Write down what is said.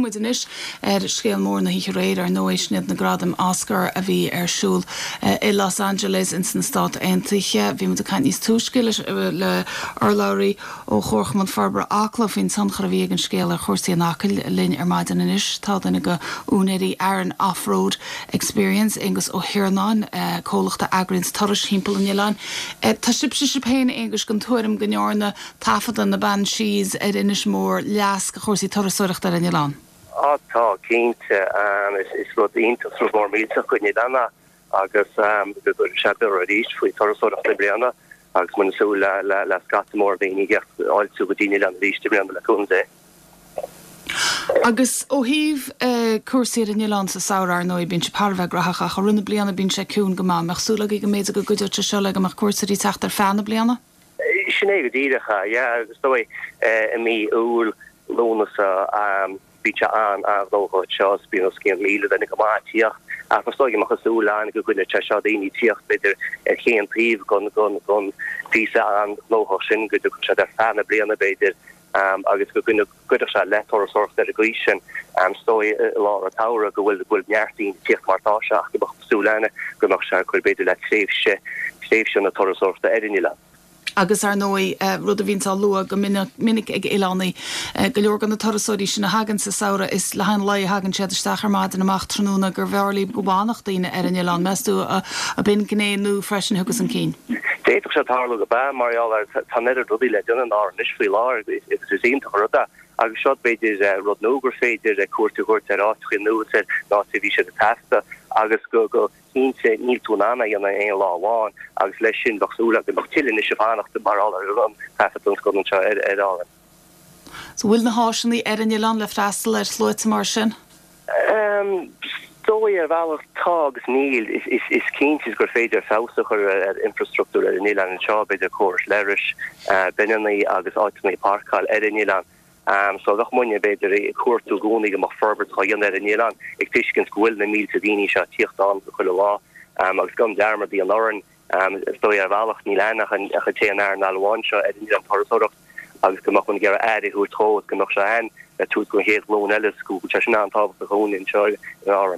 muid anois ar scéal mór na hoíche aréir, ar ndóigh, sin iad na gradaim Oscar a bhí ar siúl i Los Angeles ins na Stáit Aontaithe. Bhí muid ag caint níos túisce le urlabhraí ó Chomharchumann Forbartha Acla faoin tionchar a bhí ag an scéal ar chúrsaí in Acaill. Linn ar maidin anois tá duine de úinéirí Aran Off-Road Experience, Aonghus Ó hIarnáin, comhlacht a eagraíonns turais thimpeall an oileáin. Tá sibhse sibh féin, a Aonghuis, den tuairim go ndearna taifeadadh na Banshees ar Inis Mór leas do chúrsaí turasóireachta ar an oileán? Á tá, cinnte. Is rud iontach, is rud mór millteach don oileán é. agus go gcuirfidh sé borradh arís faoi turasóireacht i mbliana agus muid ag súil le scata mór daoine ag fáiltiú go dtí an oileán arís i mbliana le cúnamh Dé. Agus ó thaobh cúrsaí ar an oileán sa samhradh, ar ndóigh, bíonn sé thar a bheith graitheach ach i rith na bliana bíonn sé ciúin go maith. An mbeadh súil agaibh go mb'fhéidir go gcuideodh sé seo le go mbeadh cuairteoirí ag teacht ar feadh na bliana? Sin é go díreach é, yeah, agus is dóigh i mí Iúil, Lúnasa, bíonn sé an-an-ghnóthach anseo agus bíonn os cionn 1,000 duine go maith ag tíocht ach is dóigh go mbeadh súil againn go gcoinneodh sé seo daoine ag tíocht b'fhéidir ar chaon taobh den den den phíosa an-ghnóthach sin go dtiocfadh siad ar feadh na bliana b'fhéidir agus go gcuirfeadh sé le turasóireacht ar an gcaoi sin. Is dóigh i lár an tsamhraidh go bhfuil go bhfuil neart daoine ag tíocht mar atá sé ach go mbeadh súil againn go mbeadh sé ag cur b'fhéidir le tréimhse tréimhse na turasóireachta ar an oileán. Agus ar ndóigh, rud a bhíonns á lua go minic ag oileánaigh, go leor de na turasóirí sin a thagann sa samhradh, is le haghaidh an lae a thagann siad isteach ar maidin, amach tráthnóna, gurbh fhearr leo go bhfanfadh daoine ar an oileán. Meas tú ab in gné nua freisin a thiocfas chun cinn? D'fhéadfadh sé tarlú gurb ea, mar gheall ar tá an oiread rudaí le déanamh in Árainn anois faoi láthair agus is iontach an rud é. Agus seo b'fhéidir rud nua gur féidir cuairt a thabhairt ar áiteacha nua is ar na háiteacha a bhí siad ag taifeadadh agus go go cinnte níl tú in ann é a dhéanamh in aon lá amháin agus leis sin bheadh súil agam go mbeadh tuilleadh anois ag fanacht mar gheall ar an taifeadadh don scannán seo ar ar Árainn. So bhfuil na háiseanna ar an oileán le freastal ar shluaite mar sin? Is dóigh ar bhealach tá agus níl. Is cinnte gur féidir feabhas a chur ar infrastruchtúr ar an oileán anseo, b'fhéidir córais leithris, bineanna agus áiteanna páirceáil ar an oileán. So bheadh muidne, b'fhéidir, ag cuartú i gcónaí go mbeadh forbairt á dhéanamh ar an oileán, ag tuiscint go bhfuil na mílte daoine seo ag tíocht ann chuile lá. Agus gan dearmad a dhéanamh orainn, is dóigh ar bhealach, níl ann ach an t-aon earnáil amháin seo ar an oileán, turasóireacht, agus go mbeadh muid ag iarraidh aire a thabhairt dhó agus go mbeadh sé ann le tabhairt don chéad ghlúin eile, is go bhfuil sé sin an-tábhachtach dhúinne anseo in Árainn.